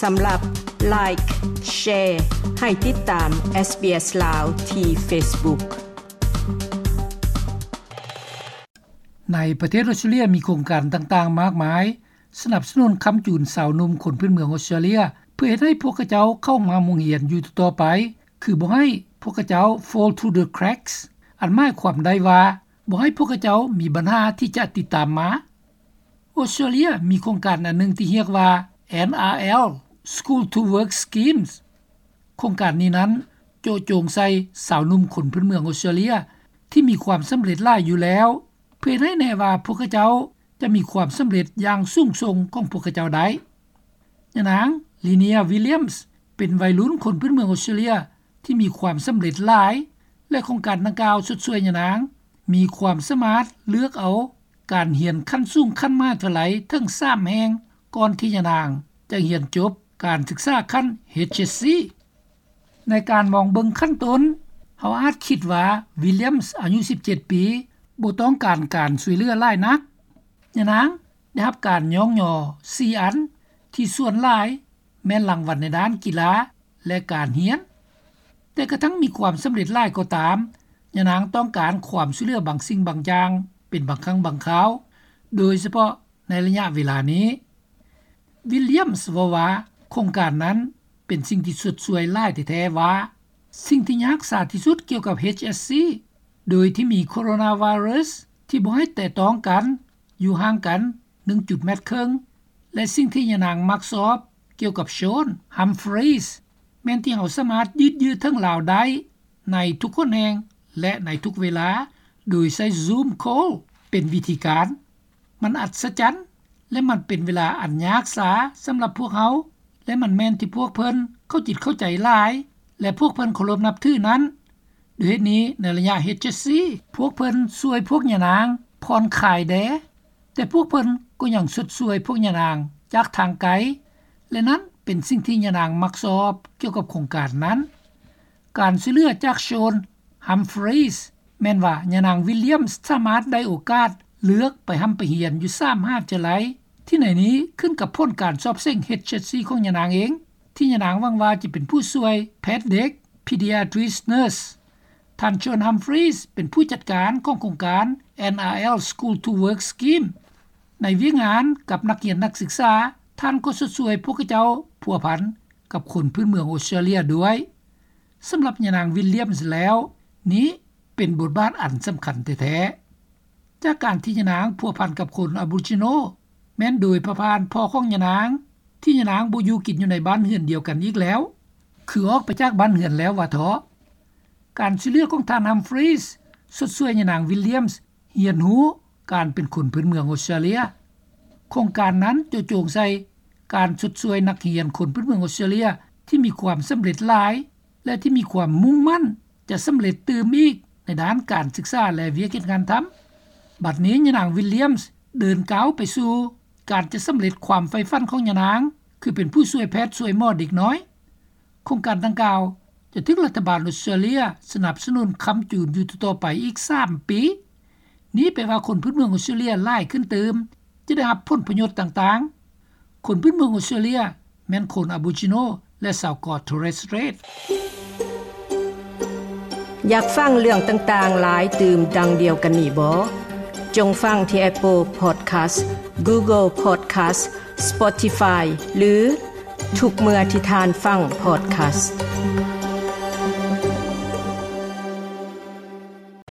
ສຳລັບ Like, Share ໃຫ້ຕິດຕາມ SBS ລາວ ທີ່ Facebook. ໃນປະເທດອອສເຕຣເລຍມີໂຄງການຕ່າງໆມາກມາຍ ສະໜັບສະໜູນຄ້ຳຈູນຊາວໜຸ່ມຄົນພື້ນເມືອງອອສເຕຣເລຍ ເພື່ອເຮັດໃຫ້ພວກເຂົາເຈົ້າເຂົ້າມາໂຮງຮຽນຢູ່ຕໍ່ໆໄປ ຄືບໍ່ໃຫ້ພວກເຂົາເຈົ້າ fall through the cracks ອັນໝາຍຄວາມໄດ້ວ່າ ບໍ່ໃຫ້ພວກເຂົາເຈົ້າມີບັນຫາທີ່ຈະຕິດຕາມມາ. ອອສເຕຣເລຍມີໂຄງການອັນໜຶ່ງທີ່ຮຽກວ່າ ເອັນອາແອລ School to Work Schemes. ໂຄງການນີ້ນັ້ນເຈາະຈົງໃສ່ຊາວໜຸ່ມຄົນພື້ນເມືອງອອສເຕຣເລຍທີ່ມີຄວາມສຳເລັດຫຼາຍຢູ່ແລ້ວ ເພື່ອເຮັດໃຫ້ແນ່ວ່າພວກເຂົາເຈົ້າຈະມີຄວາມສຳເລັດຢ່າງສູງສົ່ງຂອງພວກເຂົາເຈົ້າໄດ້. ຍານາງ Linnea Williams ເປັນໄວລຸ້ນຄົນພື້ນເມືອງອອສເຕຣເລຍທີ່ມີຄວາມສຳເລັດຫຼາຍ ແລະ ໂຄງການດັ່ງກ່າວຊົດຊ່ວຍຍານາງມີຄວາມສາມາດເລືອກເອົາການຮຽນຂັ້ນສູງຂັ້ນມະຫາວິທະຍາໄລເຖິງສາມແຫ່ງ ກ່ອນທີ່ຍານາງຈະຮຽນຈົບການສຶກສາຂັ້ນ ເອດເອັສຊີ. ໃນການມອງເບິ່ງຂັ້ນຕົ້ນ, ເຮົາອາດຄິດວ່າ Williams ອາຍຸສິບເຈັດປີ ບໍ່ຕ້ອງການການຊ່ວຍເຫຼືອຫຼາຍນັກ. ຍານາງໄດ້ຮັບການຍ້ອງຍໍສີ່ອັນ ທີ່ສ່ວນຫຼາຍແມ່ນລາງວັນໃນດ້ານກິລາ ແລະ ການຮຽນ. ແຕ່ກະທັ່ງມີຄວາມສຳເລັດຫຼາຍກໍຕາມ, ຍານາງຕ້ອງການຄວາມຊ່ວຍເຫຼືອບາງສິ່ງບາງຢ່າງເປັນບາງຄັ້ງບາງຄາວ, ໂດຍສະເພາະໃນໄລຍະເວລານີ້. Williams ເວົ້າວ່າ ໂຄງການນັ້ນເປັນສິ່ງທີ່ຊົດຊ່ວຍຫຼາຍແທ້ໆວ່າ ສິ່ງທີ່ຍາກສາທີ່ສຸດກ່ຽວກັບ ເອດເອັສຊີ ໂດຍທີ່ມີໂຄໂຣນາໄວຣັສທີ່ບໍ່ໃຫ້ແຕະຕ້ອງກັນ, ຢູ່ຫ່າງກັນໜຶ່ງຈຸດແມັດເຄິ່ງ ແລະ ສິ່ງທີ່ຍານາງມັກຊອບກ່ຽວກັບ Shaun Humphreys ແມ່ນທີ່ເຮົາສາມາດຢືດເຢື້ອເຖິງລາວໄດ້ໃນທຸກຫົນແຫ່ງ ແລະ ໃນທຸກເວລາ ໂດຍໃຊ້ Zoom Call ເປັນວິທີການ. ມັນອັດສະຈັນ ແລະ ມັນເປັນເວລາອັນຍາກສາສຳລັບພວກເຮົາ ແລະ ມັນແມ່ນທີ່ພວກເພິ່ນເຂົ້າຈິດເຂົ້າໃຈຫຼາຍ ແລະ ພວກເພິ່ນເຄົາລົບນັບຖືນັ້ນ. ດ້ວຍເຫດນີ້ ໃນໄລຍະ ເອດເອັສຊີ ພວກເພິ່ນຊ່ວຍພວກຍານາງຜ່ອນຄາຍແດ່, ແຕ່ພວກເພິ່ນກໍຍັງຊົດຊ່ວຍພວກຍານາງຈາກທາງໄກ ແລະ ນັ້ນເປັນສິ່ງທີ່ຍານາງມັກຊອບກ່ຽວກັບໂຄງການນັ້ນ. ການຊ່ວຍເຫຼືອຈາກ Shaun Humphreys ແມ່ນວ່າຍານາງ Williams ສາມາດໄດ້ໂອກາດເລືອກໄປຮ່ຳໄປຮຽນຢູ່ສາມມະຫາວິທະຍາໄລ ທີ່ໃນນີ້ຂຶ້ນກັບຜົນການສອບເສັງ ເອດເອັສຊີ ຂອງຍານາງເອງ ທີ່ຍານາງຫວັງວ່າຈະເປັນຜູ້ຊ່ວຍແພດເດັກ Pediatric Nurse. ທ່ານ Shaun Humphreys ເປັນຜູ້ຈັດການຂອງໂຄງການ ເອັນອາແອລ School to Work Scheme. ໃນວຽກງານກັບນັກຮຽນນັກສຶກສາ, ທ່ານກໍຊົດຊ່ວຍພວກເຂົາເຈົ້າພົວພັນກັບຄົນພື້ນເມືອງອອສເຕຣເລຍດ້ວຍ. ສຳລັບຍານາງ Williams ແລ້ວ, ນີ້ເປັນບົດບາດອັນສຳຄັນແທ້ໆ. ຈາກການທີ່ຍານາງພົວພັນກັບຄົນ Aboriginal ແມ່ນໂດຍຜ່ານພໍ່ຂອງຍານາງ ທີ່ຍານາງບໍ່ຢູ່ກິນຢູ່ໃນບ້ານເຮືອນດຽວກັນອີກແລ້ວ, ຄືອອກໄປຈາກບ້ານເຮືອນແລ້ວວ່າເທາະ. ການຊ່ວຍເຫຼືອຂອງທ່ານ Humphreys ຊົດຊ່ວຍຍານາງ Williams ຮຽນຮູ້ການເປັນຄົນພື້ນເມືອງອອສເຕຣເລຍ. ໂຄງການນັ້ນເຈາະຈົງໃສ່ການຊົດຊ່ວຍນັກຮຽນຄົນພື້ນເມືອງອອສເຕຣເລຍທີ່ມີຄວາມສຳເລັດຫຼາຍ ແລະ ທີ່ມີຄວາມມຸ່ງໝັ້ນຈະສຳເລັດຕື່ມອີກໃນດ້ານການສຶກສາ ແລະ ວຽກເຮັດງານທຳ. ບັດນີ້ຍານາງ Williams ເດີນກ້າວໄປສູ່ການຈະສຳເລັດຄວາມໃຝ່ຝັນຂອງຍານາງ ຄືເປັນຜູ້ຊ່ວຍແພດຊ່ວຍໝໍເດັກນ້ອຍ. ໂຄງການດັ່ງກ່າວຈະຖືກລັດຖະບານອອສເຕຣເລຍສະໜັບສະໜູນຄ້ຳຈູນຢູ່ຕໍ່ໆໄປອີກສາມປີ. ນີ້ແປວ່າຄົນພື້ນເມືອງອອສເຕຣເລຍຫຼາຍຂຶ້ນຕື່ມຈະໄດ້ຮັບຜົນປະໂຫຍດຕ່າງໆ. ຄົນພື້ນເມືອງອອສເຕຣເລຍແມ່ນຄົນ Aboriginal ແລະ ຊາວ Torres Strait. ຢາກຟັງເລື່ອງຕ່າງໆຫຼາຍຕື່ມດັ່ງດຽວກັນນີ້ບໍ? ຈົ່ງຟັງທີ່ Apple Podcast, Google Podcast, Spotify ຫຼື ທຸກເມື່ອທີ່ທ່ານຟັງ podcast.